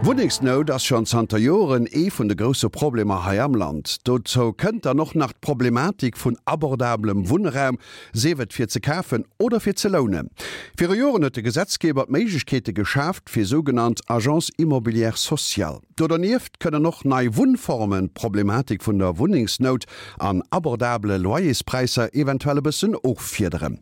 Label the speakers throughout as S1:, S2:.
S1: Wunnengsnout ass schonn zanter Joren ee vun de grousse Problemer hei am Land. Dozou kënnt dann och nach d'Problematik vun abordablem Wunnraum, sief et fir ze kafen oder fir ze lounen. Viru Joren huet de Gesetzgeber d'Méiglechkeete geschaaft fir sougenannt Agences immobilières sociales. Do dernieft kënnen och nei Wunnformen d'Problematik vun der Wunnengsnout an abordabele Loyerspräisser eventuell e bëssen offiederen.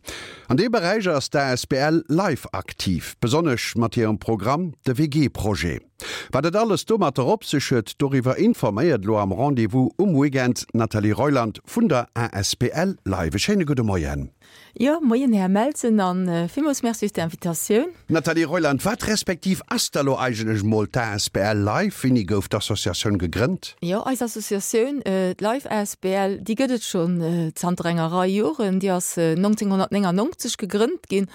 S1: An deem Beräich ass d'ASBL Life aktiv, besonnesch mat hirem Programm de WG-Projet. Wat et alles domatter op sech huet, doriwwer informéiert elo am Rendez-vous um Weekend d'Nathalie Reuland vun der asbl Life. E schéine gudde Moien.
S2: Jo, moien Här Melsen an villmools Merci fir d'Invitatioun.
S1: Nathalie Reuland, wat respektiv ass da lo eigentlech mol d'ASBL Life? Wéini gouf d'Associatioun gegrënnt?
S2: Jo, eis Associatioun, d'Life asbl, déi gëtt et schonn zanter enger Rei Joren. Déi ass 1999 gegrënnt ginn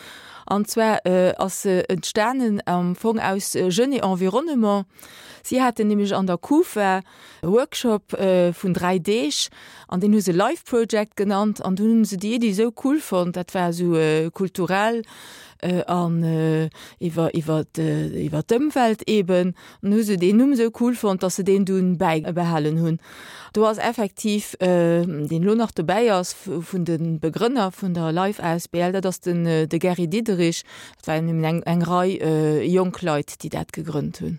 S2: an zwar ass se entstanen am Fong aus Jeunes et Environnement. Si haten nämlech an der Kufa e Workshop vun 3 Deeg an deen hu se Life Project genannt an dunn hunn se déi Iddi esou cool fonnt, dat war esou kulturell an iwwer iwwer iwwer d'Ëmwelt eben, an hu se deen Numm esou cool fonnt, datt se deen dunn bäibehalen hunn. Do ass effektiv, deen elo nach dobäi ass vun de Begrënner vun der Life asbl, dat ass den de Gary Diderich, dat waren eben eng eng Rei jonk Leit, déi dat gegrënnt hunn.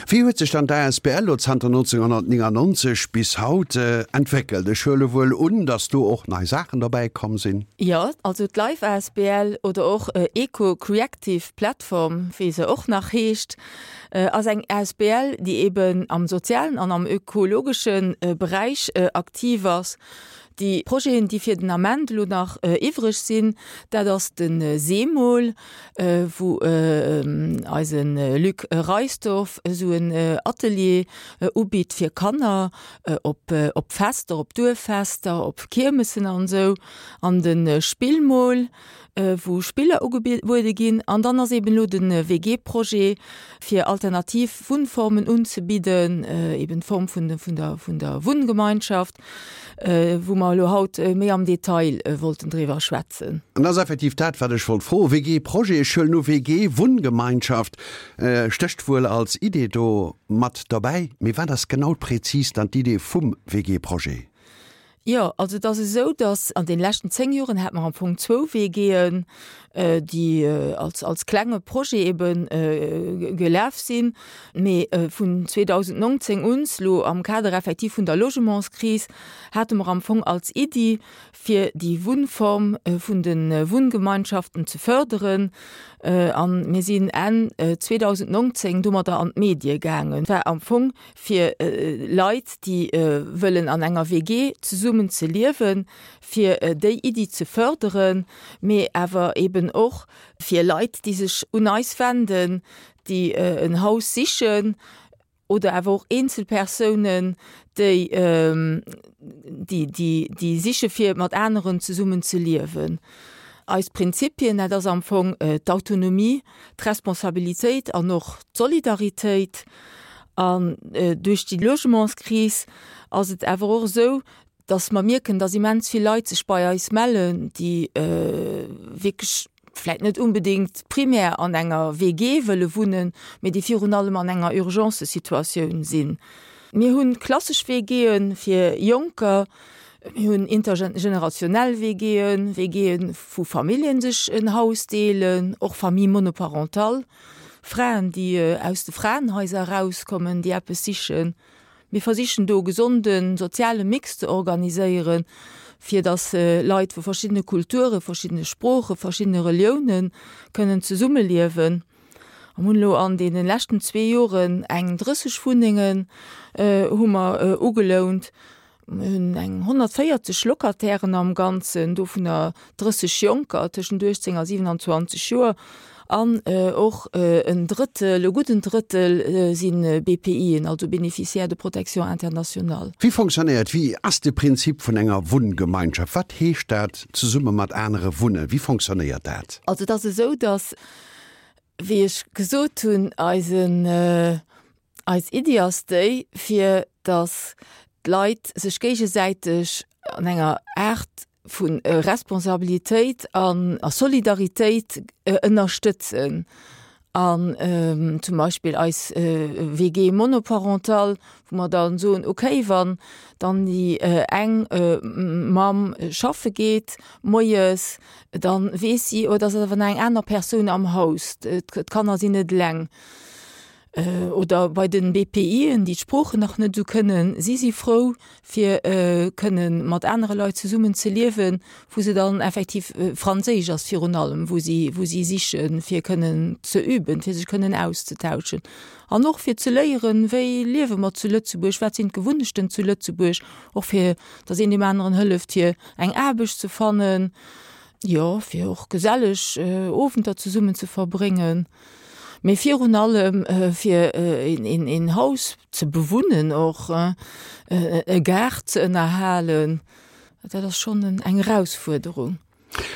S1: Wéi huet sech dann d'ASBL lo zanter 1999 bis haut entwéckelt? Ech huele wuel un, datt do och nei Saachen derbäi komm sinn.
S2: Jo, also d'Life asbl oder och Eco Creactive Platform, wéi se och nach heescht, ass eng asbl, déi eben am sozialen an am ökologesche Beräich aktiv ass. Déi Projeten, déi fir den Ament elo nach iwwreg sinn, dat ass de Seemol, wou eise Luc Reisdorf esou en Atelier ubitt fir Kanner op op Fester, op Duerffester, op Kiermessen an esou. An de Spillmol, wou Spiller ugebuede ginn. An dann ass eben elo de WG-Projet, fir alternativ Wunnformen unzebidden, eben d'Form vun der vun der Wunngemeinschaft, wou mer elo haut méi am Detail wollten driwwer schwätzen.
S1: An dat ass effektiv dat, wat ech wollt froen. WG-Projet, ech huelen u WG-Wunngemeinschaft stécht wuel als Idee do mat derbäi. Mee wat ass genau prezis dann d'Idee vum WG-Projet?
S2: Jo, also et ass esou, datt an deene leschten 10 Joren hate mer am Fong zwou WGen, déi als, als klenge Projet ebe gelaf sinn. Mee vun 2019 un, elo am Kader effektiv vun der Logementskris, hate mer am Fong als Iddi, fir déi Wunnform vun de Wunngemeinschaften ze förderen. A mir sinn Enn 2019 domadder an d'Medie gaangen. War am Fong fir Leit, déi wëllen an enger WG zesummen ze liewen, fir déi Iddi ze förderen, mee awer eben och fir Leit, déi sech un eis wenden, déi en Haus sichen oder awer och Eenzelpersounen, déi déi siche fir mat aneren zesummen ze liewen. Eis Prinzipien, dat ass am Fong d'Autonomie, d'Responsabilitéit an och d'Solidaritéit. An duerch déi Logementskris ass et awer och esou, dass mer mierken, dass immens vill Leit sech bei eis mellen, déi wierklech vläicht net unbedéngt primär an enger WG wëlle wunnen, mee déi virun allem an enger Urgencesituatioun sinn. Mir hu klassesch WGe fir Jonker, mir hunn intergenerationell WGen, WGe wou Familljen sech en Haus deelen, och Famille monoparentale, Fraen, déi aus de Fraenhaiser erauskommen, déi eppes sichen. Mir versichen do e gesonde soziale Mix ze organiséieren, fir datt Leit vu verschiddene Kulture, verschiddene Sproochen, verschiddene Relioune kënnen zesummeliewen. Mir hunn elo an deene leschten zwee Joren eng 30 Wunnengen hu mer ugelount. Mir hunn eng 140 Locatairen am Ganzen, dovunner 30 Jonker tëschent 18 a 27 Joer an och en Drëttel, e gudden Drëttel si BPIen, also Bénéficiaires de protection internationale.
S1: Wéi fonctionnéiert, wéi ass de Prinzip vun enger Wunngemeinschaft? Wat heescht dat, zesumme mat anere wunnen? Wéi fonctionnéiert dat?
S2: Also et ass esou, datt, wéi ech gesot hunn, eisen, Eis Iddi ass déi, fir datt d'Leit sech géigesäiteg an enger Aart vu Responsabilitéit an a Solidaritéit ënnerstëtzen. An zum Beispill eis WG monoparentale, wou mer dann soen, okay, wann dann déi eng Mamm schaffe geet moies, dann weess si, oh, et ass awer nach eng aner Persoun am Haus, d'Kanner sinn net eleng. Oder bei den BPIen, déi d'Sproochen nach net esou kënnen, si si frou fir kënnen mat anere Leit zesummen ze liewen, wou se dann effektiv, Franséisch ass virun allem, wou si wou si sichen, fir kënnen ze üben, fir sech kënnen auszetauschen an och fir ze léieren, wéi liewe mer zu Lëtzebuerg, wat sinn d'Gewunnechten zu Lëtzebuerg, och fir datt een deem aneren hëlleft fir eng Aarbecht ze fannen, jo fir och geselleg Owenter zesummen ze verbréngen. Mee virun allem fir een Haus ze bewunnen och, e Gaart ze ënnerhalen, dat ass schonn eng Erausfuerderung.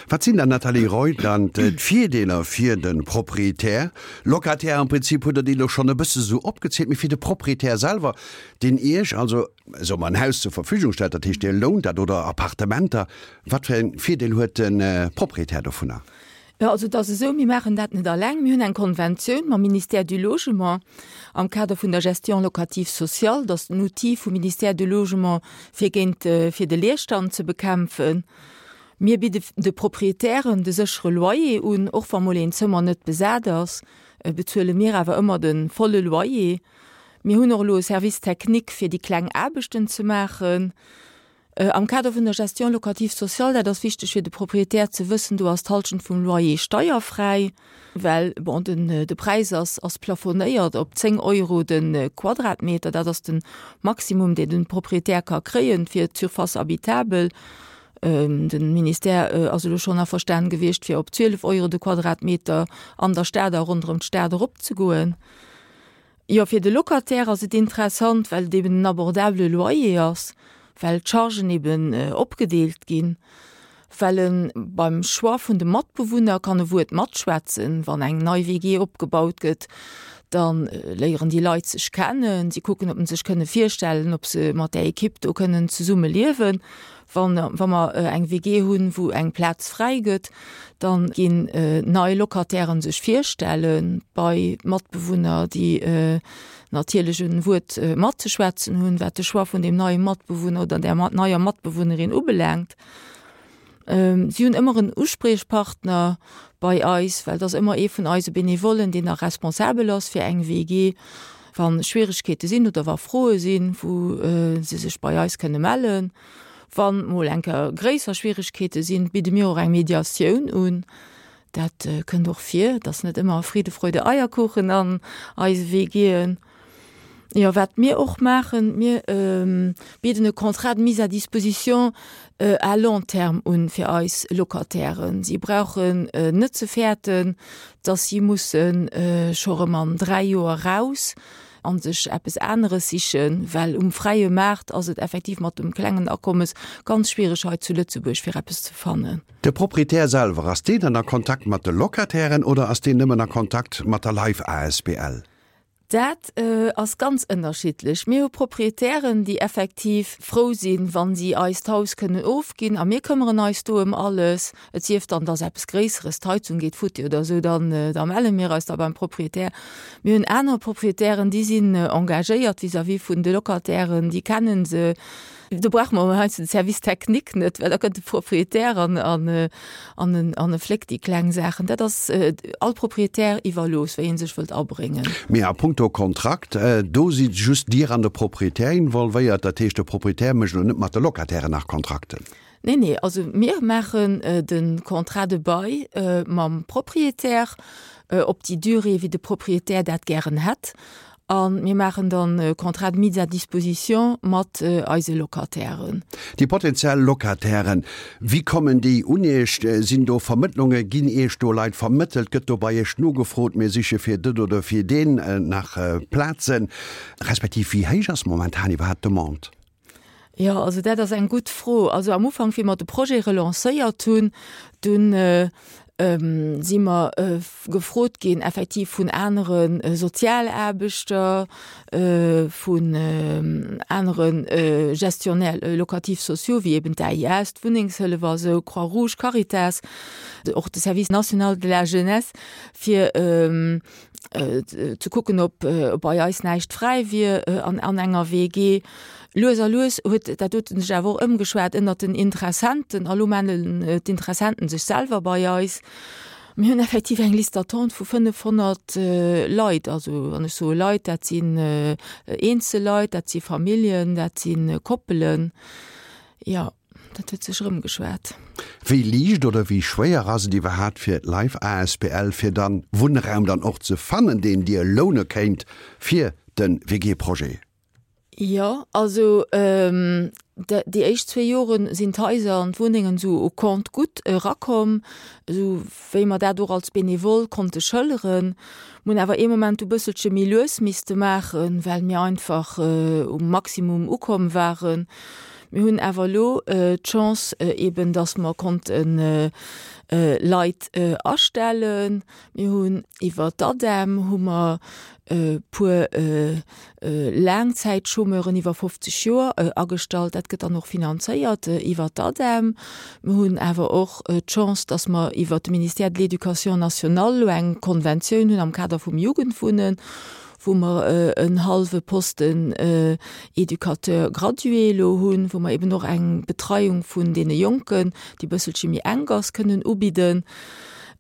S1: Wat sinn dann, Nathalie Reuland, d'Virdeeler fir de Proprietär, Locataire? Am Prinzip hutt Der déi elo schonn e bësse sou opgezielt, mee fir de Proprietär selwer, deen Iech also, soe mer, en Haus zur Verfügung stellt, dat heescht Dir lount dat, oder Appartementer, wat fir e Virdeel huet de Proprietär dovunner?
S2: Jo, also et ass esou, mir maachen dat net alleng. Mir hunn eng Konventioun mam Ministère du Logement am Kader vun der Gestion locative sociale. Dat ass den Outil vum Ministère du Logement, fir géint, fir de Leerstand ze bekämpfen. Mir bidde de Proprietären de séchere Loyer un. Och wa mol een Zëmmer net besat ass, bezuele mir awer ëmmer de volle Loyer. Mir hunn och elo e Service technique, fir déi kleng Aarbechten ze maachen. Am Kader vun der Gestion locative sociale, dat ass wichteg fir de Proprietär ze wëssen, do ass d'Halschent vum Loyer steierfräi, well, bon, den, de Präis ass, ass plafonéiert op 10 Euro de Quadratmeter. Dat ass de Maximum, deen de Proprietär ka kréien fir d'Surface habitable. De Ministère ass elo schonn averstanen gewiescht, fir op 12 Euro de Quadratmeter an der Stad a ronderëm d'Stad eropzegoen. Jo, fir de Locataire ass et interessant, well et eben en abordabele Loyer ass, well d'Chargen eben opgedeelt ginn, well e beim Choix vun de Matbewunner kann e Wuert matschwätzen. Wann eng nei WG opgebaut gëtt, da léieren déi Leit sech kennen, si kucken, ob se sech kënne virstellen, ob se mat där Ekipp do kënnen zesumme liewen. Wann, wa mer eng WG hunn, wou eng Plaz fräi gëtt, da ginn nei Locatairen sech virstelle bei Matbewunner, déi natierlech e Wuert matzeschwätzen hunn, wat de Choix vun deem neie Matbewunner oder där neier Matbewunnerin ubelaangt. Si hunn ëmmer en Uspriechpartner bei eis, well et ass ëmmer ee vun eise Benevollen, deen da responsabel ass fir eng WG. Wa Schwieregkeete sinn oder wa Froe sinn, wou se sech bei eis kënne mellen. Wann mol eng Kéier gréisser Schwieregkeete sinn, bidde mir och eng Mediatioun un. Dat kënnt och vir. Et ass net ëmmer Friede, Freude, Eierkuchen an eise WGen. Jo, wat mir och maachen, mir bidden e Contrat de mise à disposition à long terme un fir eis Locatairen. Si brauchen net ze fäerten, dass si musse scho rëm an 3 Joer raus a sech eppes aneres sichen, well um fräie Maart ass et effektiv mat dem klengen Akommes ganz schwiereg hei zu Lëtzebuerg fir eppes ze fannen.
S1: De Proprietär selwer, ass deen dann a Kontakt mat de Locatairen oder ass deen nëmmen a Kontakt mat der Life asbl?
S2: Dat ass ganz ënnerschiddlech. Mir hu Proprietären, déi effektiv frou sinn, wa si eis d'Haus kënnen ofginn a mir këmmeren eis do ëm alles. Et sief dann, dass eppes Gréisseres, d'Heizung geet futti oder esou, dann da melle mir eis da beim Proprietär. Mir hunn aner Proprietären, déi sinn engagéiert vis-à-vis vun de Locatairen, déi kennen se. Do brauche mer heiansdo de Service technique net, well da kënnt de Proprietär an, an, an en, an e fléckt déi kleng Saachen. Dat ass all Proprietär iwwerlooss, wéi e sech wëllt abréngen.
S1: Mee a puncto Kontrakt, do si just Dir an de Proprietär involvéiert. Dat heescht, de Proprietär mécht elo net mat de Locatairen nach Kontrakten?
S2: Nee, nee, also mir maachen de Contrat de bail mam Proprietär op déi Durée, wéi de Proprietär dat gären hätt. A mir maachen dann e Contrat de mise à disposition mat eise Locatairen.
S1: Déi potenziell Locatairen, wéi kommen déi un Iech? Sinn do Vermëttlunge? Ginn Iech do Leit vermëttelt? Gëtt do bei Iech nogefrot, mir siche fir dët oder fir deen nach Plazen? Respektiv wéi héich ass momentan iwwerhaapt d'Demande?
S2: Jo, also dat ass eng gutt Fro. Also am Ufank, wéi mer de Projet relancéiert hunn, dunn. Si mer gefrot ginn effektiv vun anere Sozialaarbechter, vun anere Gestionnaires locatifs sociaux, wéi eben d'AIS, d'Wunnengshëllef a sou, Croix-Rouge, Caritas, och de Service national de la jeunesse, fir ze kucken, ob bei eis näischt fräi wier an enger WG. Lues a lues huet dat doten sech awer och ëmgeschwat ënnert den Interessenten a lo mellen d'Interessenten sech selwer bei eis. Mir hunn effektiv eng Liste d'attente vu 500 Leit. Also wann ech soe Leit, dat sinn eenzel Leit, dat si Familljen, dat si Koppelen. Jo, dat huet sech erëmgeschwat.
S1: Wéi liicht oder wéi schwéier ass et iwwerhaapt fir d'Life asbl fir dann Wunnraum dann och ze fannen, deen Dir loune kéint fir de WG-Projet?
S2: Jo, also déi éischt zwee Jore sinn d'Haiser an d'Wunnengen esou au compte-gouttes erakomm, esou wéi mer dat och als Benevole konnte schëlleren. Mir hunn awer ee Moment du bësselche méi lues misste maachen, well mir einfach um Maximum ukomm waren. Mir hunn awer elo d'Chance eben, dass mer konnte Leit astellen. Mir hunn iwwer d'ADEM hu mer e puer Laangzäitchômeuren iwwer 50 Joer agestallt. Dat gëtt dann och finanzéiert iwwer d'ADEM. Mir hunn awer och d'Chance, dass mer iwwer de Ministère de l'Éducation nationale elo eng Konventioun hunn am Kader vum Jugendwunnen, wou mer en hallwe Posten Éducateur gradué elo hunn, wou mer eben och eng Betreiung vun deene Jonken, déi e bësselche méi enk ass, kënnen ubidden.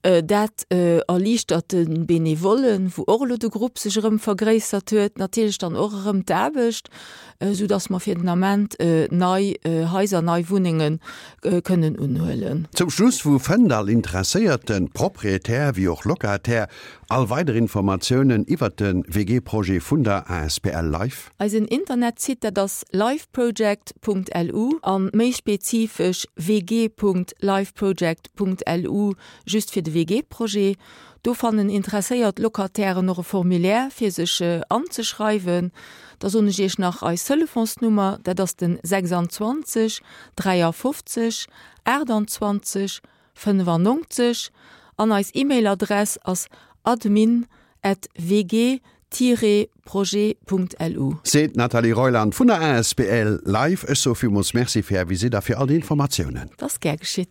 S2: Dat erliichtert de Benevollen, wou och elo de Grupp sech erëm vergréissert huet, natierlech dann och erëm d'Aarbecht, esou datt mer fir den Ament nei Haiser, nei Wunnenge kënnen unhuelen.
S1: Zum Schluss, wou fënnt all interesséierte Proprietär wéi och Locataire all weider Informatiounen iwwert de WG-Projet vun der asbl Life?
S2: Eisen Internetsite, dat ass lifeproject.lu a méi spezifesch wg.lifeproject. .lu just fir de WG-Projet. Do fannen interesséiert Locatairen och e Formulaire fir sech anzeschreiwen. Da soen ech iech nach eis Telefonsnummer, dat ass den 26 53 28 95 an eis E-Mail-Adress ass admin at wg-projet.lu.
S1: Seet d'Nathalie Reuland vun der asbl Life. Ech soe villmools Merci fir Är Visitt a fir all déi Informatiounen.
S2: Et ass gär geschitt.